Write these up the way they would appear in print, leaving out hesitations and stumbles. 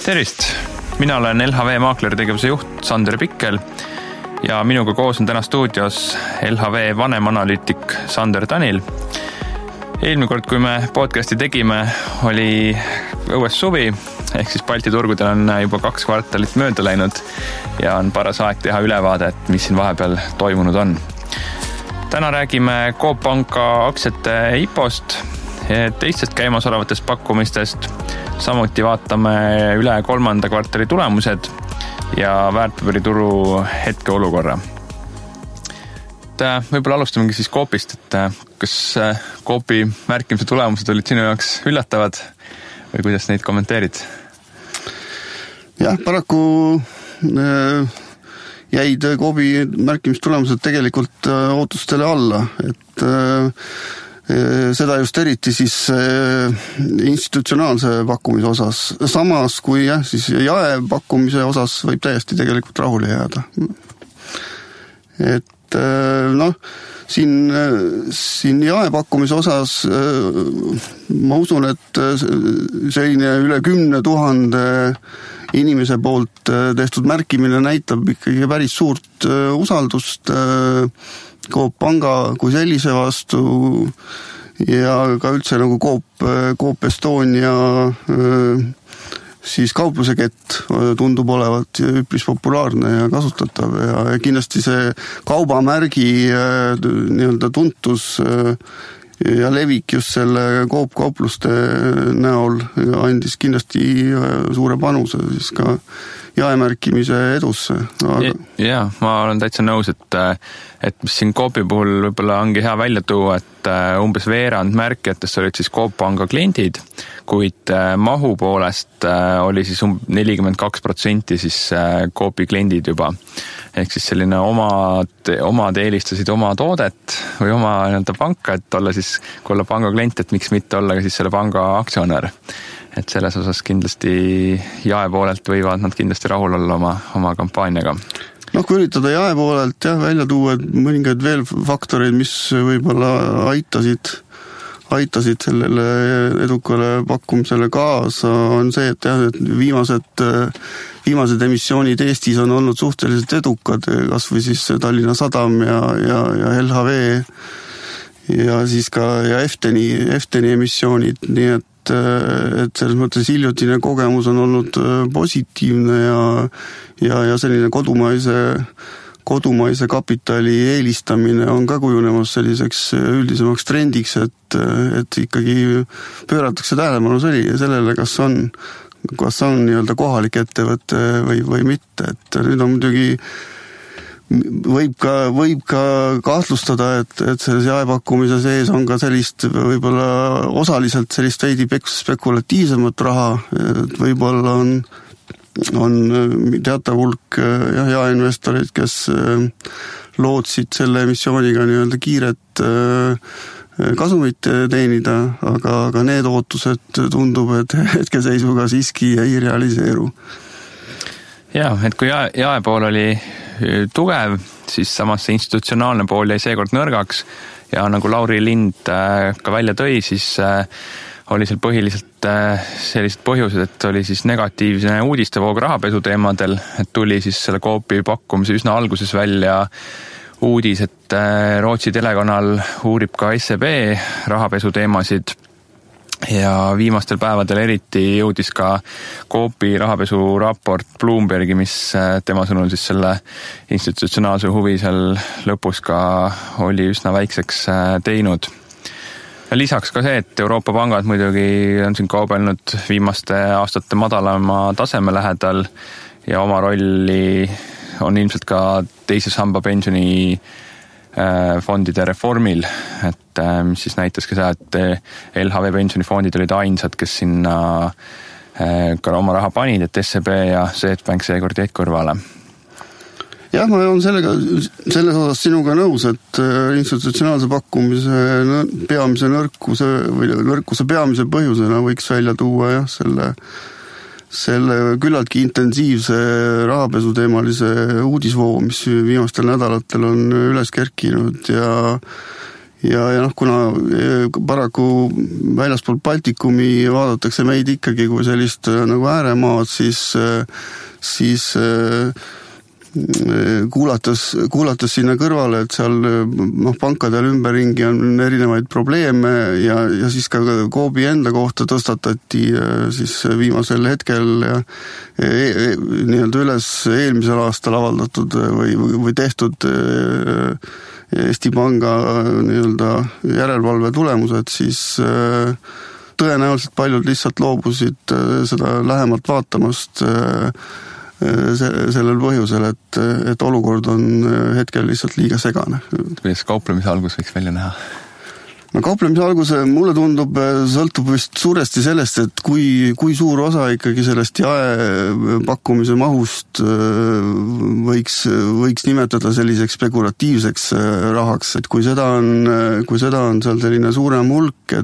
Tervist! Mina olen LHV maaklertegevuse juht Sander Pikkel ja minuga koos on täna stuudios LHV vanemanalüütik Sander Tanil. Eelmine kord, kui me podcasti tegime, oli õues suvi, ehk siis Balti turgudel on juba 2 kvartalit mööda läinud ja on paras aeg teha ülevaade, et mis siin vahepeal toimunud on. Täna räägime Coop Panga aktsiate IPO-st, teistest käimasolevatest pakkumistest, samuti vaatame üle 3. kvartali tulemused ja väärtpaberituru hetkeolukorra. Võib-olla alustamegi siis Coopist, et kas Coopi märkimise tulemused olid sinu jaoks üllatavad või kuidas neid kommenteerid? Jah, paraku jäid Coopi märkimistulemused tegelikult ootustele alla, et seda just eriti siis institutsionaalse pakkumise osas. Samas kui siis jae pakkumise osas võib täiesti tegelikult rahule jääda. Et siin jae pakkumise osas ma usun, et selline üle 10 000 inimese poolt tehtud märkimine näitab ikkagi päris suurt usaldust Coop Panga kui sellise vastu ja ka üldse nagu Coop Estonia siis kauplusekett tundub olevat üpris populaarne ja kasutatav ja kindlasti see kaubamärgi nii-öelda tuntus ja levik just selle Coop kaupluste näol andis kindlasti suure panuse siis ka jaemärkimise edusse. Aga... Ja, ma olen täitsa nõus, et mis siin Coopi puhul võib-olla ongi hea välja tuua, et umbes veerand märkijatest olid siis Coop Panga kliendid, kuid mahu poolest oli siis 42% siis Coopi kliendid juba. Ehk siis selline omad eelistasid oma toodet või oma panka, et olla siis, kui olla panga klient, et miks mitte olla ka siis selle panga aktsionär. Et selles osas kindlasti jae poolelt võivad nad kindlasti rahul olla oma kampaaniaga. Kui üritada jae poolelt välja tuua mõningaid veel faktoreid, mis võib-olla aitasid sellele edukale pakkumisele kaasa, on see, et viimased emissioonid Eestis on olnud suhteliselt edukad, kas või siis Tallinna Sadam ja LHV ja siis ka Efteni emissioonid, nii et selles mõttes hiljutine kogemus on olnud positiivne ja selline kodumaise kapitali eelistamine on ka kujunemas selliseks üldisemaks trendiks, et ikkagi pööratakse tähelepanu sellele, kas on nii-öelda kohalik ettevõte või mitte, et nüüd on muidugi võib ka kahtlustada, et selles jaepakkumise sees on ka sellist võib-olla osaliselt sellist veidi spekulatiivsemat raha, et võib-olla on teatav hulk jaeinvestorid, kes lootsid selle emissiooniga nii-öelda kiiret kasumit teenida, aga need ootused tundub, et hetkeseisuga siiski ei realiseeru. Ja, et kui jae pool oli tugev, siis samas see institutsionaalne pool jäi seekord nõrgaks ja nagu Lauri Lind ka välja tõi, siis oli seal põhiliselt sellised põhjused, et oli siis negatiivne uudistevoog rahapesu teemadel, et tuli siis selle Coopi pakkumise üsna alguses välja uudis, et Rootsi telekanal uurib ka SEB rahapesu teemasid ja viimastel päevadel eriti jõudis ka Coopi rahapesu raport Bloombergi, mis tema sõnul siis selle institutsionaalse huvi seal lõpus ka oli üsna väikseks teinud. Ja lisaks ka see, et Euroopa pangad muidugi on siin kaubelnud viimaste aastate madalama taseme lähedal ja oma rolli on ilmselt ka teise samba pensioni fondide reformil, et mis siis näitas ka seda, et LHV pensionifondid olid ainsad, kes sinna ka oma raha panid, et SEB ja Swedbank seekord jäid kõrvale. Jah, ma olen selles osas sinuga nõus, et institutsionaalse pakkumise peamise nõrkuse peamise põhjusena võiks välja tuua selle küllaltki intensiivse rahapesu teemalise uudisvoo, mis viimastel nädalatel on üles kerkinud ja noh, kuna paraku väljaspool Baltikumi vaadatakse meid ikkagi kui sellist nagu ääremaad, siis kuulates sinna kõrvale, et seal pankadel ümberringi on erinevaid probleeme ja siis ka Coopi enda kohta tõstatati siis viimasel hetkel nii-öelda üles eelmisel aastal avaldatud või tehtud Eesti Panga nii-öelda järelevalve tulemused, siis tõenäoliselt paljud lihtsalt loobusid seda lähemalt vaatamast sellel põhjusel, et olukord on hetkel lihtsalt liiga segane. Kuidas kauplemise algus võiks välja näha? No kauplemise alguse mulle tundub, sõltub vist suuresti sellest, et kui suur osa ikkagi sellest jaepakkumise mahust võiks nimetada selliseks spekulatiivseks rahaks, et kui seda on seal selline suurem hulk,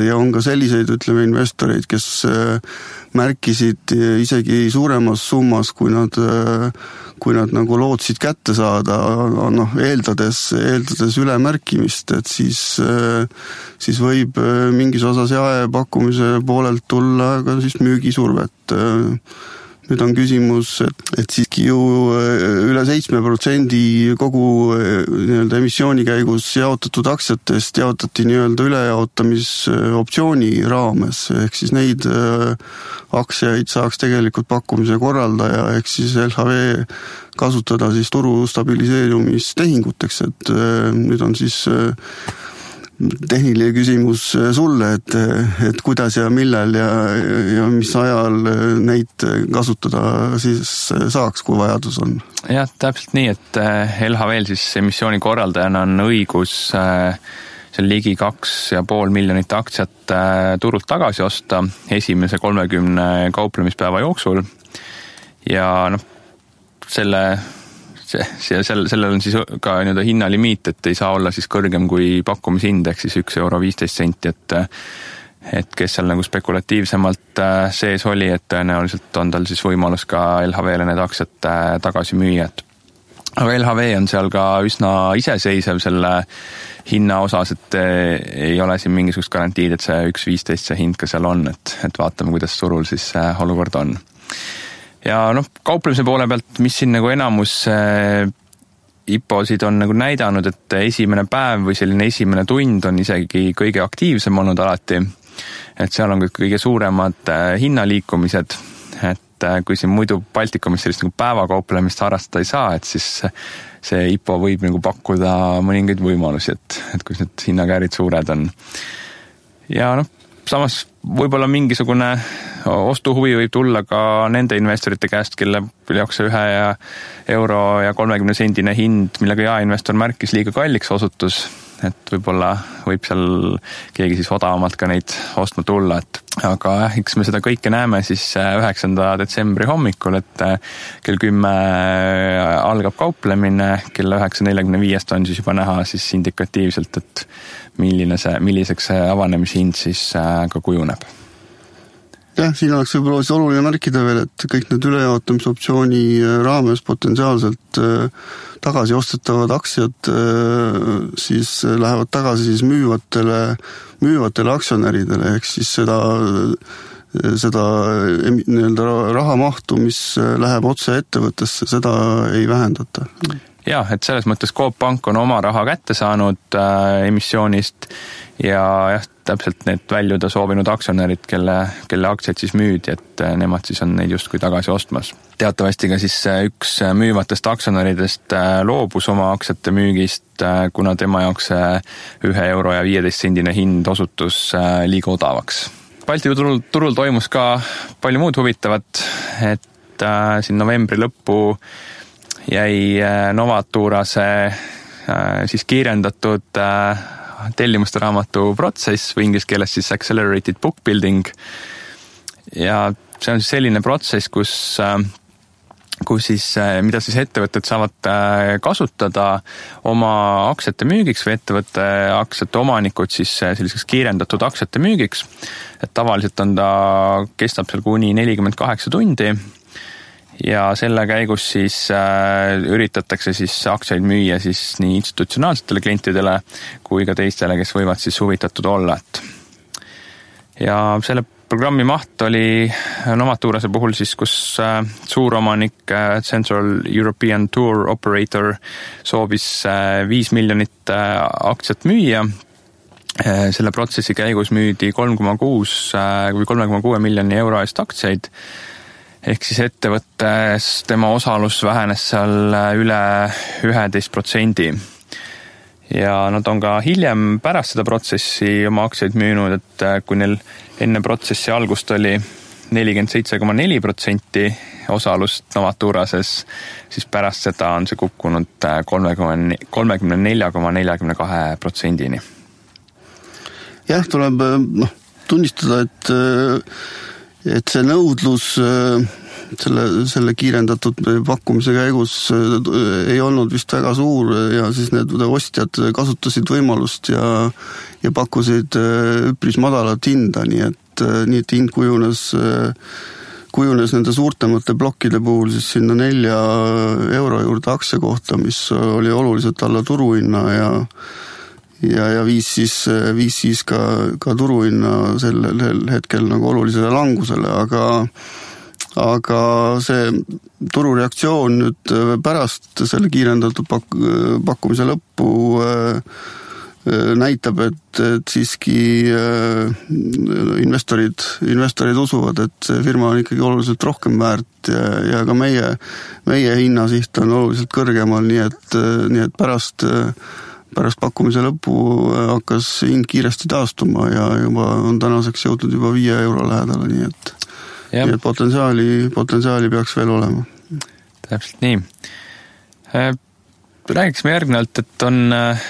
ja on ka selliseid, ütleme, investoreid, kes märkisid isegi suuremas summas, kui nad nagu lootsid kätte saada, eeldades ülemärkimist, et siis võib mingis osas jaepakkumise poolelt tulla ka siis müügisurvet. Nüüd on küsimus, et siiski ju üle 7% kogu nii-öelda emissiooni käigus jaotatud aktsiatest jaotati nii-öelda ülejaotamisoptsiooni raames, ehk siis neid aktsiaid saaks tegelikult pakkumise korraldaja, ehk siis LHV kasutada siis turu stabiliseerumistehinguteks, et nüüd on siis tehniline küsimus sulle, et kuidas ja millal ja mis ajal neid kasutada siis saaks, kui vajadus on. Jah, täpselt nii, et LHV-l siis emissiooni korraldajana on õigus seal ligi 2,5 miljonit aktsiat turult tagasi osta esimese 30 kauplemispäeva jooksul ja sellel on siis ka nii-öelda hinnalimiit, et ei saa olla siis kõrgem kui pakkumishind, ehk siis €1.15, et kes seal nagu spekulatiivsemalt sees oli, et tõenäoliselt on tal siis võimalus ka LHV-le need aktsiad tagasi müüa. Aga LHV on seal ka üsna iseseisev selle hinna osas, et ei ole siin mingisugust garantiid, et see 1.15 see hind ka seal on, et vaatame, kuidas turul siis olukord on. Ja kauplemise poole pealt, mis siin nagu enamus IPO-sid on nagu näidanud, et esimene päev või selline esimene tund on isegi kõige aktiivsem olnud alati, et seal on kõige suuremad hinnaliikumised, et kui siin muidu Baltikumis sellist nagu päevakauplemist harrastada ei saa, et siis see IPO võib nagu pakkuda mõningaid võimalusi, et kus need hinnakäärid suured on. Ja samas võib-olla mingisugune ostuhuvi võib tulla ka nende investorite käest, kelle jaoks see €1.30 hind, millega jaeinvestor märkis liiga kalliks osutus, et võib-olla võib seal keegi siis odavamalt ka neid ostma tulla, aga eks me seda kõike näeme siis 9. detsembri hommikul, et kell 10 algab kauplemine, kell 9.45 on siis juba näha siis indikatiivselt, et milliseks see avanemishind siis ka kujuneb. Jah, siin oleks võib-olla oluline märkida veel, et kõik need ülejaotamisoptsiooni raames potentsiaalselt tagasi ostetavad aktsiad siis lähevad tagasi siis müüvatele aktsionäridele, ehk siis seda nii-öelda rahamahtu, mis läheb otse ettevõttesse, seda ei vähendata. Jah, et selles mõttes Coop Pank on oma raha kätte saanud emissioonist ja täpselt need väljuda soovinud aktsionärid, kelle aktsiaid siis müüdi, et nemad siis on neid justkui tagasi ostmas. Teatavasti ka siis üks müüvatest aktsionäridest loobus oma aktsiate müügist, kuna tema jaoks €1.15 hind osutus liiga odavaks. Balti turul toimus ka palju muud huvitavat, et siin novembri lõppu jäi Novaturase siis kiirendatud tellimuste raamatu protsess või inglise keeles siis accelerated book building. Ja see on siis selline protsess, kus siis, mida siis ettevõtted saavad kasutada oma aktsiate müügiks või ettevõtte aktsiate omanikud siis selliseks kiirendatud aktsiate müügiks. Et tavaliselt kestab seal kuni 48 tundi. ja selle käigus siis üritatakse siis aktsiaid müüa siis nii institutsionaalsetele klientidele kui ka teistele, kes võivad siis huvitatud olla. Ja selle programmi maht oli Novaturase puhul siis, kus suuromanik Central European Tour Operator soovis 5 miljonit aktsiat müüa. Selle protsessi käigus müüdi 3,6 miljoni euro eest aktsiaid, ehk siis ettevõttes tema osalus vähenes seal üle 11%. Ja nad on ka hiljem pärast seda protsessi oma aktsiaid müünud, et kui neil enne protsessi algust oli 47,4% osalust Novaturases, siis pärast seda on see kukkunud 34,42%-ni. Jah, tuleb tunnistada, et see nõudlus selle kiirendatud pakkumise käigus ei olnud vist väga suur ja siis need ostjad kasutasid võimalust ja pakkusid üpris madalat hinda, nii et hind kujunes nende suurtemate plokkide puhul siis sinna 4 euro juurde aktsia kohta, mis oli oluliselt alla turuhinna ja viis siis ka turuhinna sellel hetkel nagu olulisele langusele, aga see turureaktsioon nüüd pärast selle kiirendatud pakkumise lõppu näitab, et siiski investorid usuvad, et see firma on ikkagi oluliselt rohkem väärt ja ka meie hinnasiht on oluliselt kõrgemal, nii et pärast pakkumise lõppu hakkas hind kiiresti taastuma ja juba on tänaseks jõudnud juba 5 euro lähedale, nii et potentsiaali peaks veel olema. Täpselt nii. Räägiksime järgnevalt, et on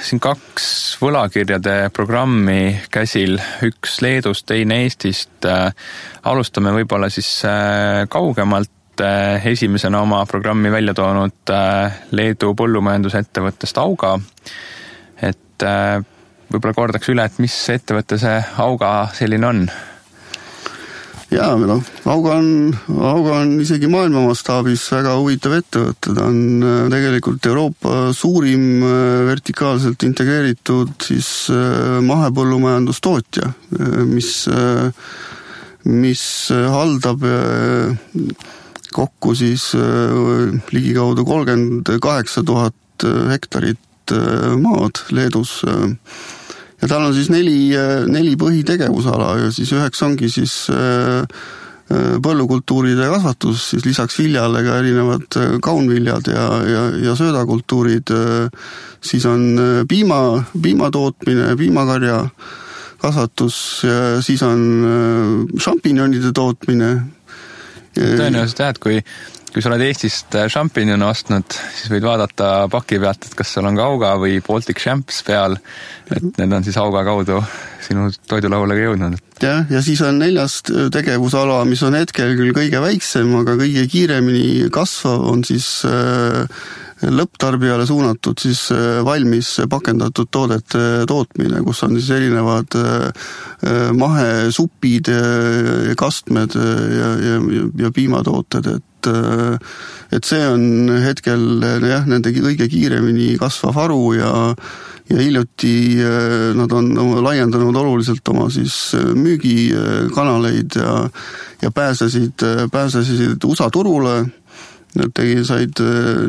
siin 2 võlakirjade programmi käsil, üks Leedust, teine Eestist. Alustame võib-olla siis kaugemalt. Esimesena oma programmi välja toonud Leedu põllumajandusettevõttest Auga. Et võib-olla kordaks üle, et mis ettevõtte see Auga selline on? Jaa, Auga on isegi maailma mastaabis väga huvitav ettevõte. Ta on tegelikult Euroopa suurim vertikaalselt integreeritud siis mahepõllumajandustootja, mis haldab kokku siis ligikaudu 38 000 hektarit maad Leedus. Ja tal on siis 4 põhitegevusala ja siis 9 ongi siis põllukultuuride kasvatus, siis lisaks viljale ka erinevad kaunviljad ja söödakultuurid, siis on piimatootmine, piimakarja kasvatus ja siis on šampinjonide tootmine. Tõenäoliselt jah, et kui sa oled Eestist šampinjone ostnud, siis võid vaadata paki pealt, et kas seal on ka Auga või Baltic Champs peal, et need on siis Auga kaudu sinu toidulauale jõudnud. Ja siis on 4. tegevusala, mis on hetkel küll kõige väiksem, aga kõige kiiremini kasvav on siis lõpptarbijale suunatud siis valmis pakendatud toodete tootmine, kus on siis erinevad mahesupid, kastmed ja piimatooted, et see on hetkel nende kõige kiiremini kasvav haru ja hiljuti nad on laiendanud oluliselt oma siis müügikanaleid ja pääsesid USA turule. Nad said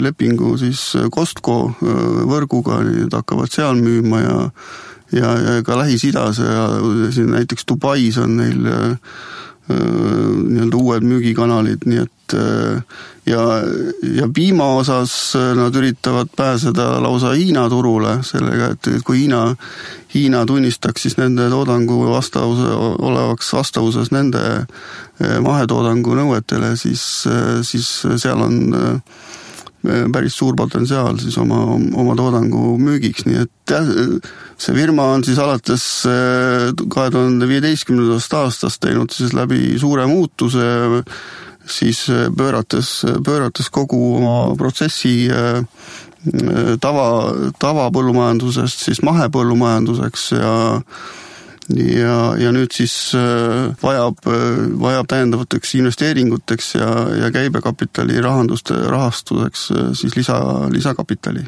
lepingu siis Costco võrguga, need hakkavad seal müüma ja ka Lähis-Idas ja siin näiteks Dubais on neil nii-öelda uued müügikanalid, nii et ja piima osas nad üritavad pääseda lausa Hiina turule sellega, et kui Hiina tunnistaks siis nende toodangu olevaks vastavuses nende mahetoodangu nõuetele, siis seal on päris suur potentsiaal siis oma toodangu müügiks, nii et see firma on siis alates 2015. aastast teinud siis läbi suure muutuse, siis pöörates kogu oma protsessi tavapõllumajandusest siis mahepõllumajanduseks ja nüüd siis vajab täiendavateks investeeringuteks ja käibekapitali rahastuseks siis lisakapitali.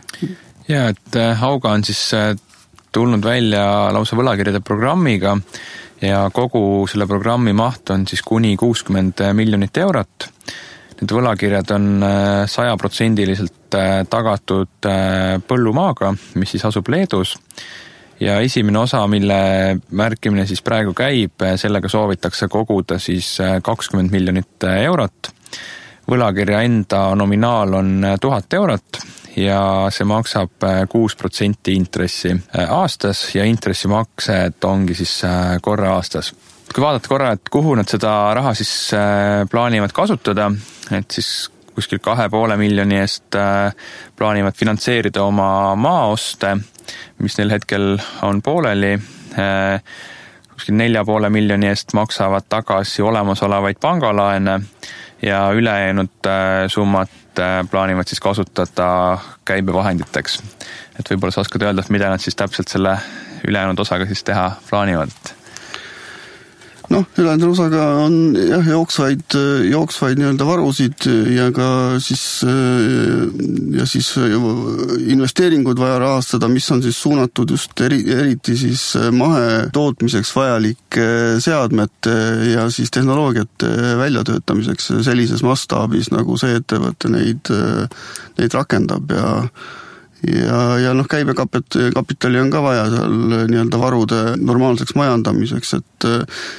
Ja, et Hauga on siis tulnud välja lausa võlakirjade programmiga ja kogu selle programmi maht on siis kuni 60 miljonit eurot. Need võlakirjad on 100% tagatud põllumaaga, mis siis asub Leedus. Ja esimene osa, mille märkimine siis praegu käib, sellega soovitakse koguda siis 20 miljonit eurot. Võlakirja enda nominaal on 1000 eurot ja see maksab 6% intressi aastas ja intressimaksed ongi siis korra aastas. Kui vaadata korra, et kuhu nad seda raha siis plaanivad kasutada, et siis kuskil 2,5 miljoni eest plaanivad finantseerida oma maaoste, mis neil hetkel on pooleli. Kuskil 4,5 miljoni eest maksavad tagasi olemasolevaid pangalaene ja ülejäänud summat plaanivad siis kasutada käibevahenditeks. Et võib-olla sa oskad öelda, mida nad siis täpselt selle ülejäänud osaga siis teha plaanivad? Ülejäänud osaga on jah, jooksvaid nii-öelda varusid ja ka siis investeeringud vaja rahastada, mis on siis suunatud just eriti siis mahetootmiseks vajalike seadmete ja siis tehnoloogiate väljatöötamiseks sellises mastaabis, nagu see ettevõte neid rakendab ja käibekapitali on ka vaja seal nii-öelda varude normaalseks majandamiseks, et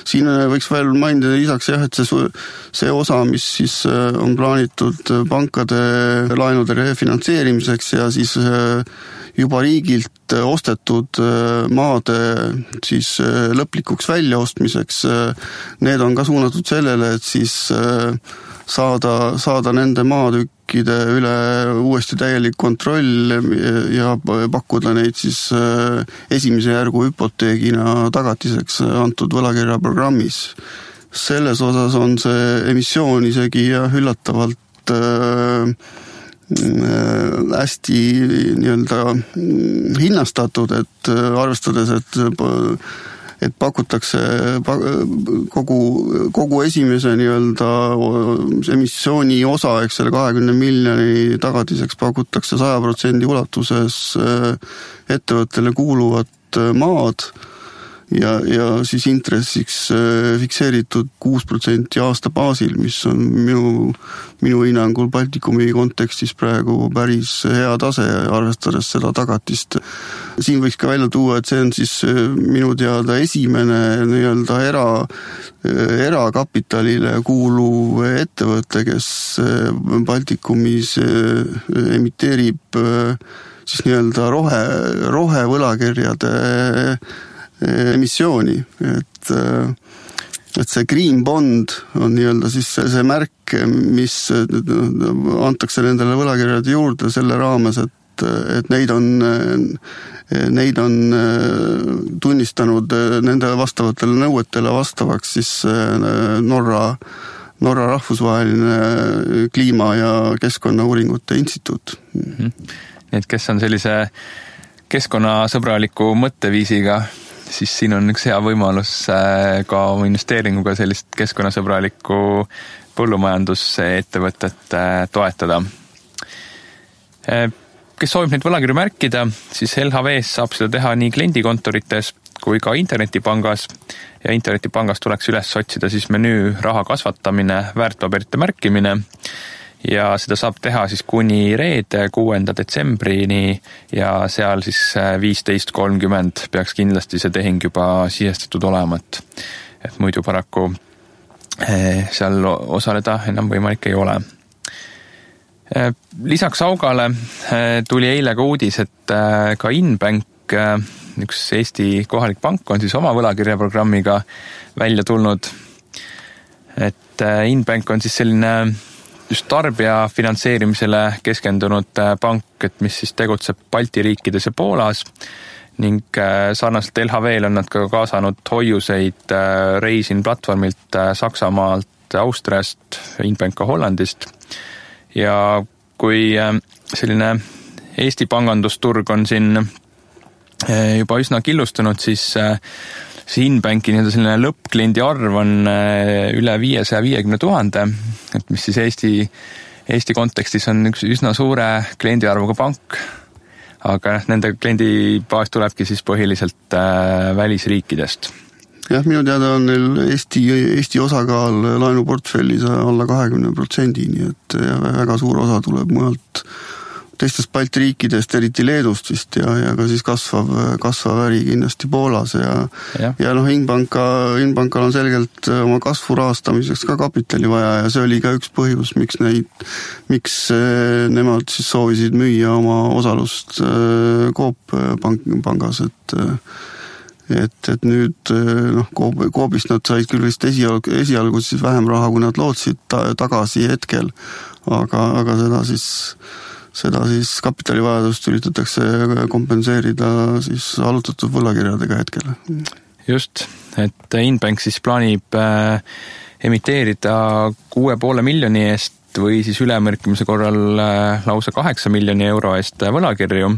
siin võiks veel mainida lisaks jah, et see osa, mis siis on plaanitud pankade laenude refinantseerimiseks ja siis juba riigilt ostetud maade siis lõplikuks väljaostmiseks, need on ka suunatud sellele, et siis saada nende maatükkide üle uuesti täielik kontroll ja pakkuda neid siis esimese järgu hüpoteegina tagatiseks antud võlakirjaprogrammis. Selles osas on see emissioon isegi üllatavalt hästi nii-öelda hinnastatud, et arvestades, et pakutakse kogu esimese nii-öelda emissiooni osa, eks selle 20 miljoni tagatiseks pakutakse 100% ulatuses ettevõttele kuuluvat maad ja siis intressiks fikseeritud 6% aasta baasil, mis on minu hinnangul Baltikumi kontekstis praegu päris hea tase, arvestades seda tagatist. Siin võiks ka välja tuua, et see on siis minu teada esimene nii-öelda erakapitalile kuuluv ettevõte, kes Baltikumis emiteerib siis nii-öelda rohevõlakirjade emissiooni, et see Green Bond on nii-öelda siis see märk, mis antakse nendele võlakirjade juurde selle raames, et neid on tunnistanud nende vastavatele nõuetele vastavaks siis Norra rahvusvaheline kliima- ja keskkonnauuringute instituut. Et kes on sellise keskkonnasõbraliku mõtteviisiga, siis siin on üks hea võimalus ka oma investeeringuga sellist keskkonnasõbralikku põllumajandusettevõtet toetada. Kes soovib neid võlakirju märkida, siis LHV-s saab seda teha nii kliendikontorites kui ka internetipangas ja internetipangas tuleks üles otsida siis menüü raha kasvatamine, väärtpaberite märkimine ja seda saab teha siis kuni reede 6. detsembrini ja seal siis 15.30 peaks kindlasti see tehing juba sisestatud olema, et muidu paraku seal osaleda enam võimalik ei ole. Lisaks Haugale tuli eile ka uudis, et ka Inbank, üks Eesti kohalik pank, on siis oma võlakirjaprogrammiga välja tulnud. Et Inbank on siis selline just tarbija finantseerimisele keskendunud pank, et mis siis tegutseb Balti riikides ja Poolas ning sarnaselt LHV-l on nad ka kaasanud hoiuseid Reisin platvormilt Saksamaalt, Austriast, Inbank ka Hollandist. Ja kui selline Eesti pangandusturg on siin juba üsna killustunud, siis see Inbanki selline lõppkliendi arv on üle 550 000, et mis siis Eesti kontekstis on üks üsna suure kliendiarvuga pank, aga nende kliendibaas tulebki siis põhiliselt välisriikidest. Jah, minu teada on neil Eesti osakaal laenuportfellis alla 20%, nii et väga suur osa tuleb mujalt teistest Balti riikidest, eriti Leedust vist ja ka siis kasvav äri kindlasti Poolas ja Inbankal on selgelt oma kasvu rahastamiseks ka kapitali vaja ja see oli ka üks põhjus, miks nemad siis soovisid müüa oma osalust Coop pangas, et nüüd Coopist nad said küll vist esialgu siis vähem raha, kui nad lootsid tagasi hetkel, aga seda siis kapitalivajadust üritatakse kompenseerida siis allutatud võlakirjadega hetkel. Just, et Inbank siis plaanib emiteerida 6,5 miljoni eest või siis ülemärkimise korral lausa 8 miljoni euro eest võlakirju,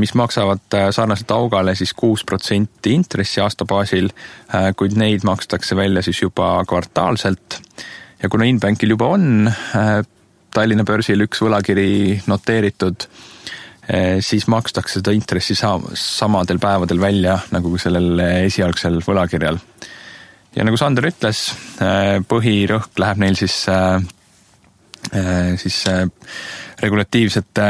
mis maksavad sarnaselt augale siis 6% intressi aastabaasil, kuid neid makstakse välja siis juba kvartaalselt. Ja kuna Inbankil juba on Tallinna börsil üks võlakiri noteeritud, siis makstakse seda intressi samadel päevadel välja nagu sellel esialgsel võlakirjal. Ja nagu Sander ütles, põhirõhk läheb neil siis regulatiivsete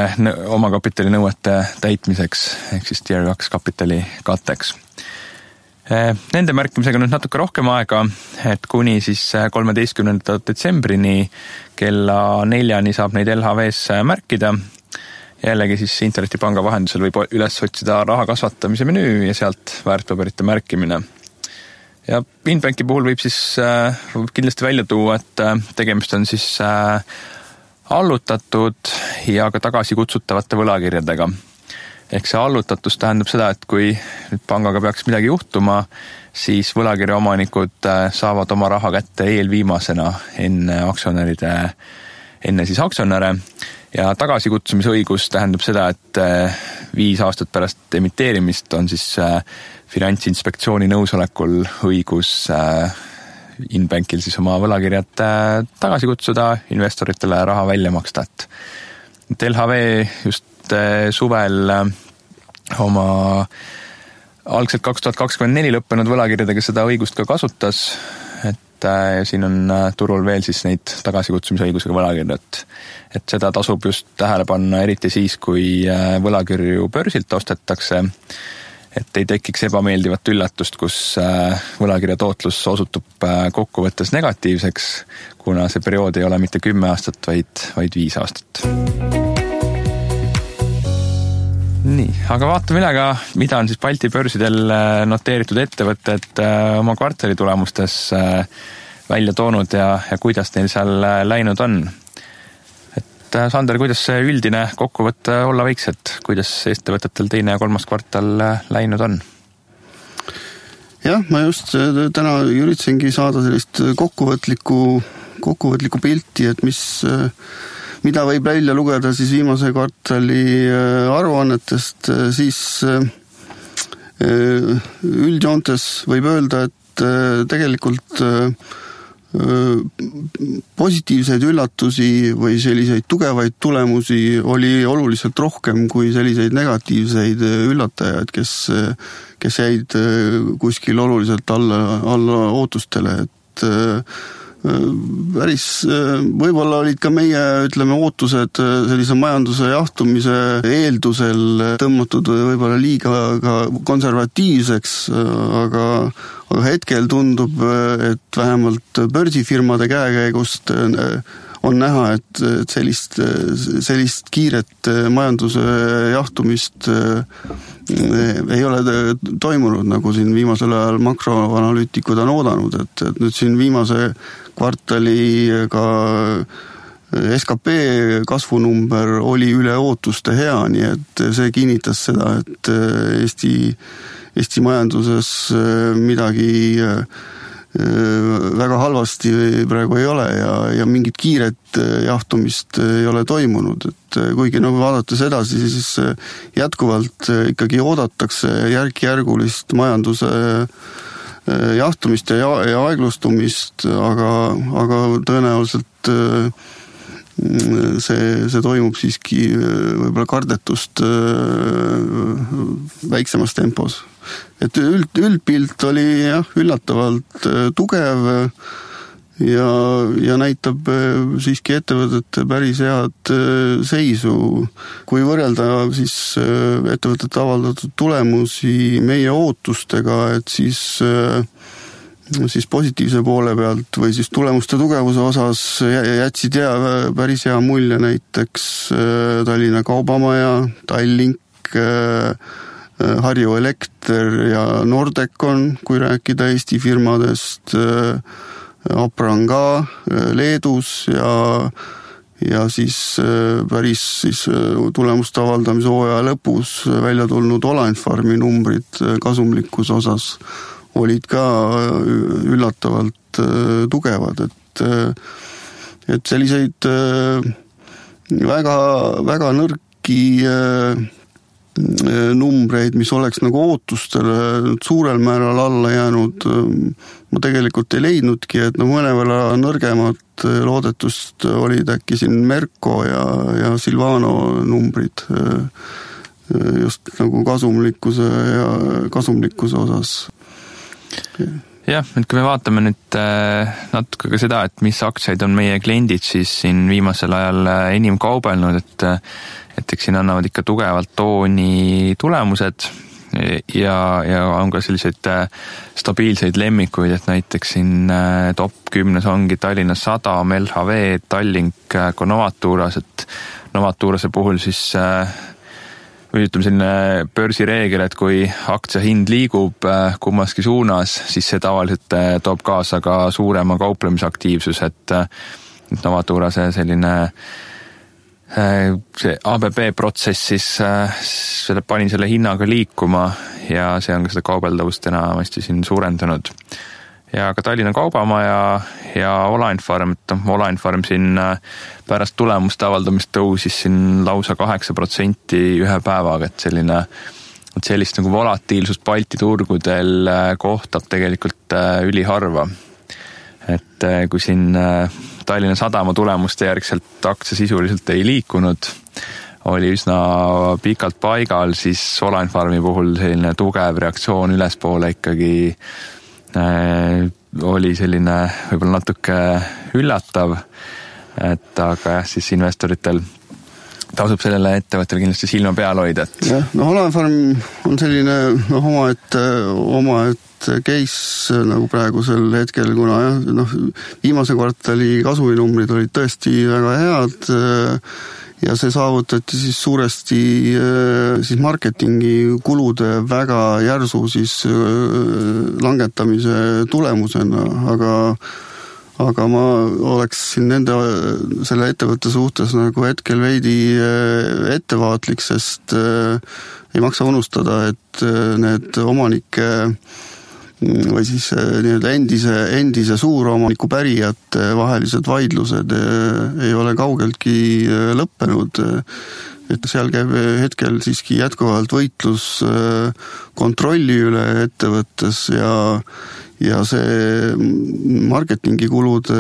omakapitalinõuete täitmiseks, ehk siis Tier 2 kapitali katteks. Nende märkimisega nüüd natuke rohkem aega, et kuni siis 13. detsembrini kella 4 saab neid LHV-s märkida. Jällegi siis internetipanga vahendusel võib üles otsida raha kasvatamise menüü ja sealt väärtpaberite märkimine. Ja Inbanki puhul võib siis kindlasti välja tuua, et tegemist on siis allutatud ja ka tagasi kutsutavate võlakirjadega. Ehk see allutatus tähendab seda, et kui nüüd pangaga peaks midagi juhtuma, siis võlakirja omanikud saavad oma raha kätte eelviimasena enne siis aktsionäre ja tagasikutsumisõigus tähendab seda, et 5 aastat pärast emiteerimist on siis Finantsinspektsiooni nõusolekul õigus Inbankil siis oma võlakirjad tagasi kutsuda, investoritele raha välja maksta. Et LHV just suvel oma algselt 2024 lõppenud võlakirjadega seda õigust ka kasutas, et siin on turul veel siis neid tagasikutsumise õigusega võlakirjad. Et seda tasub just tähele panna eriti siis, kui võlakirju börsilt ostetakse, et ei tekiks ebameeldivat üllatust, kus võlakirja tootlus osutub kokkuvõttes negatiivseks, kuna see periood ei ole mitte 10 aastat, vaid 5 aastat. Nii, aga vaatame üle ka, mida on siis Balti börsidel noteeritud ettevõtted oma kvartali tulemustes välja toonud ja kuidas neil seal läinud on. Et Sander, kuidas see üldine kokkuvõte olla võiks, et kuidas ettevõtetel 2. ja 3. kvartal läinud on? Jah, ma just täna üritasingi saada sellist kokkuvõtlikku pilti, et mida võib välja lugeda siis viimase kvartali aruannetest, siis üldjoontes võib öelda, et tegelikult positiivseid üllatusi või selliseid tugevaid tulemusi oli oluliselt rohkem kui selliseid negatiivseid üllatajaid, kes jäid kuskil oluliselt alla ootustele, et võib-olla olid ka meie, ootused sellise majanduse jahtumise eeldusel tõmmatud võib-olla liiga ka konservatiivseks, aga hetkel tundub, et vähemalt börsifirmade käekäigust on näha, et sellist kiiret majanduse jahtumist ei ole toimunud, nagu siin viimasel ajal makroanalüütikud on oodanud, et nüüd siin viimase kvartali ka SKP kasvunumber oli üle ootuste hea, nii et see kinnitas seda, et Eesti majanduses midagi väga halvasti praegu ei ole ja mingit kiiret jahtumist ei ole toimunud, et kuigi vaadates edasi, siis jätkuvalt ikkagi oodatakse järk-järgulist majanduse jahtumist ja aeglustumist, aga tõenäoliselt see toimub siiski võib-olla kardetust väiksemas tempos. Et üldpilt oli üllatavalt tugev ja näitab siiski ettevõtete päris head seisu. Kui võrrelda siis ettevõtete avaldatud tulemusi meie ootustega, et siis positiivse poole pealt või siis tulemuste tugevuse osas jätsid päris hea mulje näiteks Tallinna Kaubamaja, Tallink, Harju Elekter ja Nordecon, kui rääkida Eesti firmadest, Apran ka Leedus ja siis päris siis tulemuste avaldamise hooaja lõpus välja tulnud Olainfarmi numbrid kasumlikkuse osas olid ka üllatavalt tugevad, et selliseid väga, väga nõrki numbreid, mis oleks ootustele suurel määral alla jäänud, ma tegelikult ei leidnudki, et mõnevõrra nõrgemad loodetust olid äkki siin Merko ja Silvano numbrid just kasumlikkuse osas. Jah, et kui me vaatame nüüd natuke ka seda, et mis aktsiaid on meie kliendid siis siin viimasel ajal enim kaubelnud, et eks siin annavad ikka tugevalt tooni tulemused ja on ka selliseid stabiilseid lemmikuid, et näiteks siin top 10 ongi Tallinna Sadam, LHV, Tallink, ka Novaturas, et Novaturase puhul siis ütleme selline börsireegel, et kui aktsia hind liigub kummaski suunas, siis see tavaliselt toob kaasa ka suurema kauplemisaktiivsus, et Novaturase selline see ABB protsess siis pani selle hinnaga liikuma ja see on ka seda kaubeldavust enamasti siin suurendanud. Ja ka Tallinna Kaubamaja ja Olainfarm, et Olainfarm siin pärast tulemuste avaldamist tõusis siin lausa 8% ühe päevaga, et sellist volatiilsust Balti turgudel kohtab tegelikult üliharva. Et kui siin Tallinna Sadama tulemuste järgselt aktsia sisuliselt ei liikunud, oli üsna pikalt paigal, siis Olainfarmi puhul selline tugev reaktsioon ülespoole ikkagi oli selline võib-olla natuke üllatav, et aga jah, siis investoritel tasub sellele ettevõttele kindlasti silma peal hoida. Jah, Olainfarm on selline omaette case nagu praegusel hetkel, kuna viimase kvartali kasuminumbrid olid tõesti väga head ja see saavutati siis suuresti siis marketingi kulude väga järsu siis langetamise tulemusena, aga ma oleks siin selle ettevõtte suhtes hetkel veidi ettevaatlik, sest ei maksa unustada, et need omanike või siis endise suuromaniku pärijate vahelised vaidlused ei ole kaugeltki lõppenud, et seal käib hetkel siiski jätkuvalt võitlus kontrolli üle ettevõttes ja see marketingikulude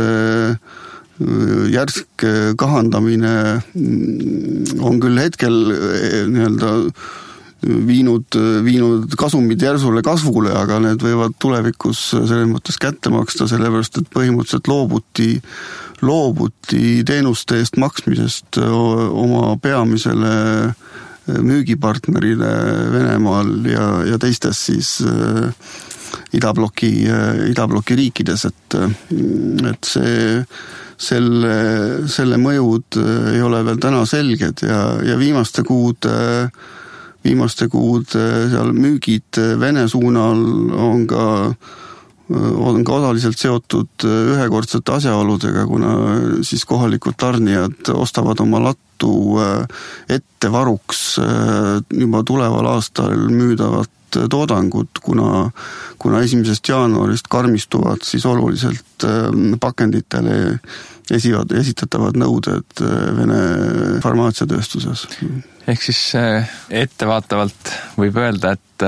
järsk kahandamine on küll hetkel viinud kasumid järsule kasvule, aga need võivad tulevikus selles mõttes kätte maksta, sellepärast et põhimõtteliselt loobuti teenuste eest maksmisest oma peamisele müügipartnerile Venemaal ja teistes siis idabloki riikides, et selle mõjud ei ole veel täna selged ja viimaste kuud seal müügid Vene suunal on ka osaliselt seotud ühekordsete asjaoludega, kuna siis kohalikud tarnijad ostavad oma lattu ettevaruks juba tuleval aastal müüdavat toodangut, kuna 1. jaanuarist karmistuvad siis oluliselt pakenditele esitatavad nõuded Vene farmaatsiatööstuses. Ehk siis ettevaatavalt võib öelda, et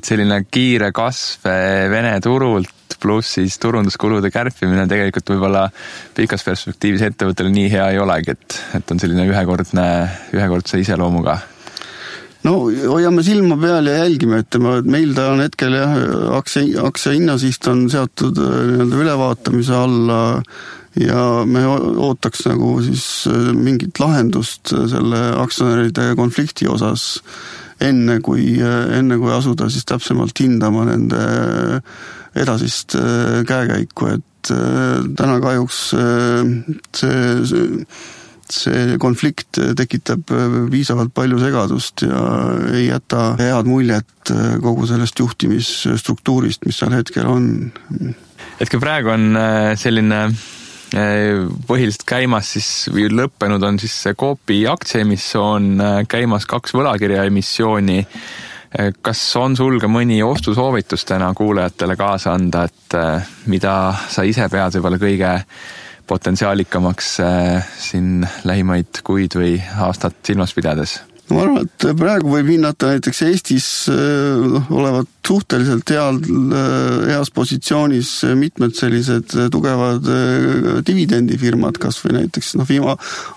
selline kiire kasv Vene turult pluss siis turunduskulude kärpimine tegelikult võib-olla pikas perspektiivis ettevõttele nii hea ei olegi, et on selline ühekordse iseloomuga. No hoiame silma peal ja jälgime, et meil ta on hetkel aktsia hinnasiht on seatud ülevaatamise alla ja me ootaks nagu siis mingit lahendust selle aktsionäride konflikti osas enne kui asuda siis täpsemalt hindama nende edasist käekäiku, et täna kahjuks see konflikt tekitab piisavalt palju segadust ja ei jäta head muljet kogu sellest juhtimisstruktuurist, mis seal hetkel on. Hetkel praegu on selline põhiliselt käimas siis, või lõppenud on siis Coopi aktsiaemissioon, käimas 2 võlakirja emissiooni. Kas on sul ka mõni ostusoovitus täna kuulajatele kaasa anda, et mida sa ise pead võib-olla kõige potentsiaalikamaks siin lähimaid kuid või aastat silmas pidades? Ma arvan, et praegu võib hinnata näiteks Eestis olevat suhteliselt heas positsioonis mitmed sellised tugevad dividendifirmad, kas või näiteks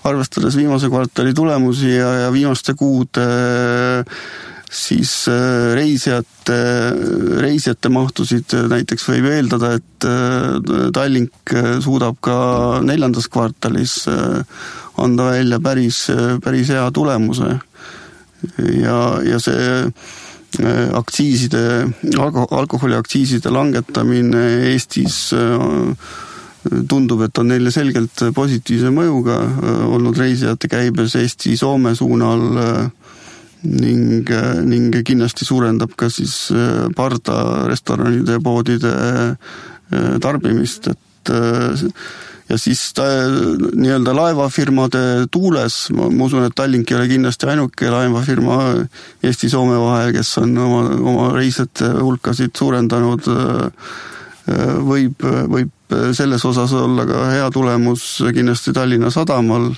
arvestades viimase kvartali tulemusi ja viimaste kuude siis reisijate mahtusid näiteks võib eeldada, et Tallink suudab ka 4. kvartalis anda välja päris hea tulemuse ja see alkoholiaktsiiside langetamine Eestis tundub, et on neile selgelt positiivse mõjuga olnud reisijate käibes Eesti-Soome suunal ning kindlasti suurendab ka siis parda restoranide ja poodide tarbimist, ja siis nii-öelda laevafirmade tuules, ma usun, et Tallink ei ole kindlasti ainuke laevafirma Eesti-Soome vahel, kes on oma reisijate hulkasid suurendanud, võib selles osas olla ka hea tulemus kindlasti Tallinna Sadamal,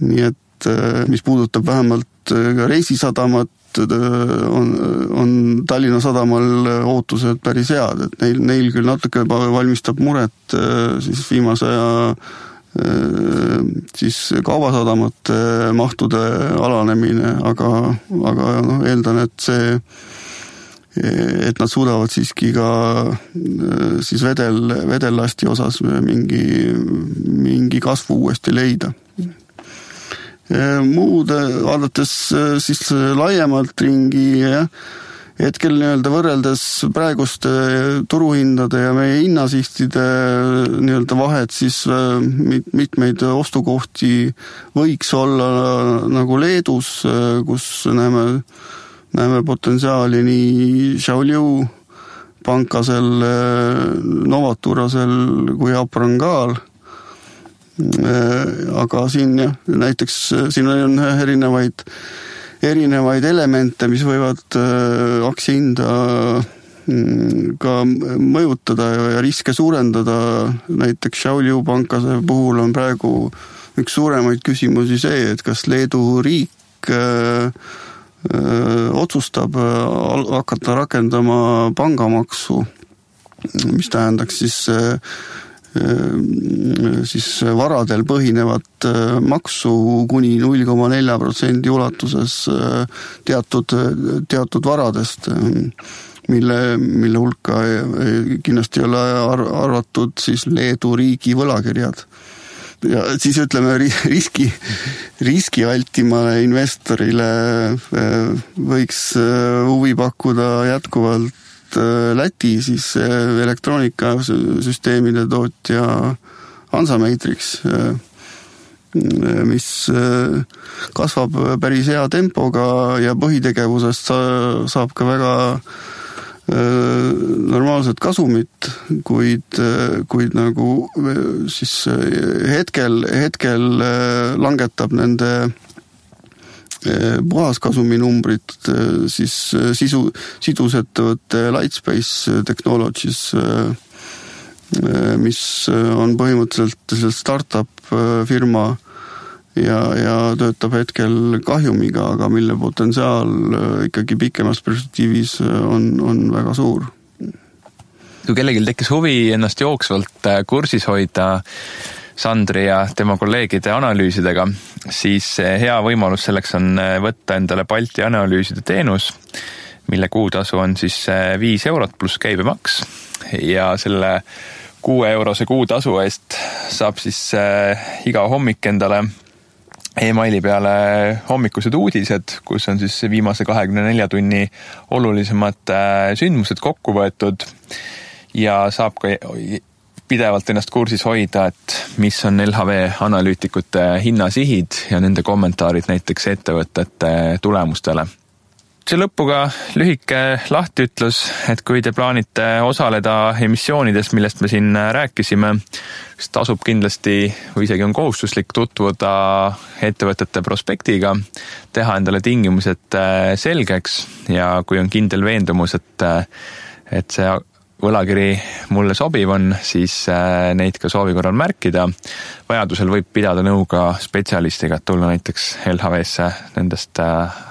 nii et mis puudutab vähemalt ka reisisadamat, on Tallinna Sadamal ootused päris head, et neil küll natuke valmistab muret siis viimase aja siis kaubasadamate mahtude alanemine, aga eeldan, et nad suudavad siiski ka siis vedellasti osas mingi kasvu uuesti leida. Muud vaadates siis laiemalt ringi, hetkel nii-öelda võrreldes praeguste turuhindade ja meie hinnasihtide nii-öelda vahet, siis mitmeid ostukohti võiks olla nagu Leedus, kus näeme potentsiaali nii Šiauliu pankasel, Novaturasel kui Aprangal. Aga siin näiteks siin on erinevaid elemente, mis võivad aktsiahinda ka mõjutada ja riske suurendada. Näiteks Šiauliu pankase puhul on praegu üks suuremaid küsimusi see, et kas Leedu riik otsustab hakata rakendama pangamaksu, mis tähendaks siis varadel põhinevat maksu kuni 0,4% ulatuses teatud varadest, mille hulka kindlasti ei ole arvatud siis Leedu riigi võlakirjad. Ja siis ütleme riski vältimale investorile võiks huvi pakkuda jätkuvalt Läti siis elektroonikasüsteemide tootja Hansa Matrix, mis kasvab päris hea tempoga ja põhitegevusest saab ka väga normaalset kasumit, kuid nagu siis hetkel langetab nende puhaskasumi numbrid, siis sidusettevõtte Lightspace Technologies, mis on põhimõtteliselt startup firma ja töötab hetkel kahjumiga, aga mille potentsiaal ikkagi pikemas perspektiivis on väga suur. Kui kellelgi tekkis huvi ennast jooksvalt kursis hoida Sandri ja tema kolleegide analüüsidega, siis hea võimalus selleks on võtta endale Balti analüüside teenus, mille kuutasu on siis 5 eurot pluss käibemaks ja selle 6 eurose kuutasu eest saab siis iga hommik endale e-maili peale hommikused uudised, kus on siis viimase 24 tunni olulisemad sündmused kokku võetud ja saab ka pidevalt ennast kursis hoida, et mis on LHV analüütikute hinnasihid ja nende kommentaarid näiteks ettevõtete tulemustele. See lõpuga lühike lahtiütlus, et kui te plaanite osaleda emissioonides, millest me siin rääkisime, siis tasub kindlasti või isegi on kohustuslik tutvuda ettevõtete prospektiga, teha endale tingimused selgeks ja kui on kindel veendumus, et see võlakiri mulle sobiv on, siis neid ka soovi korral märkida. Vajadusel võib pidada nõu ka spetsialistiga, et tulla näiteks LHV-sse nendest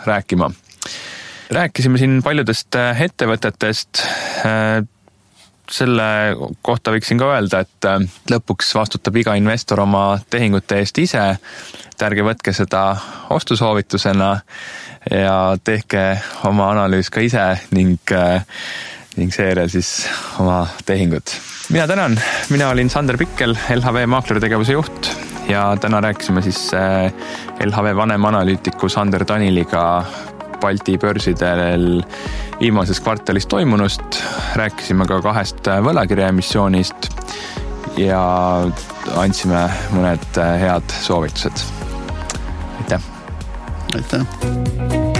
rääkima. Rääkisime siin paljudest ettevõtetest. Selle kohta võiksin ka öelda, et lõpuks vastutab iga investor oma tehingute eest ise. Ärge võtke seda ostusoovitusena ja tehke oma analüüs ka ise ning seejärel siis oma tehingud. Mina tänan, mina olin Sander Pikkel, LHV maaklertegevuse juht ja täna rääkisime siis LHV vanemanalüütiku Sander Taniliga Balti börsidel viimases kvartalis toimunust. Rääkisime ka 2 võlakirja emissioonist ja andsime mõned head soovitused. Aitäh! Aitäh!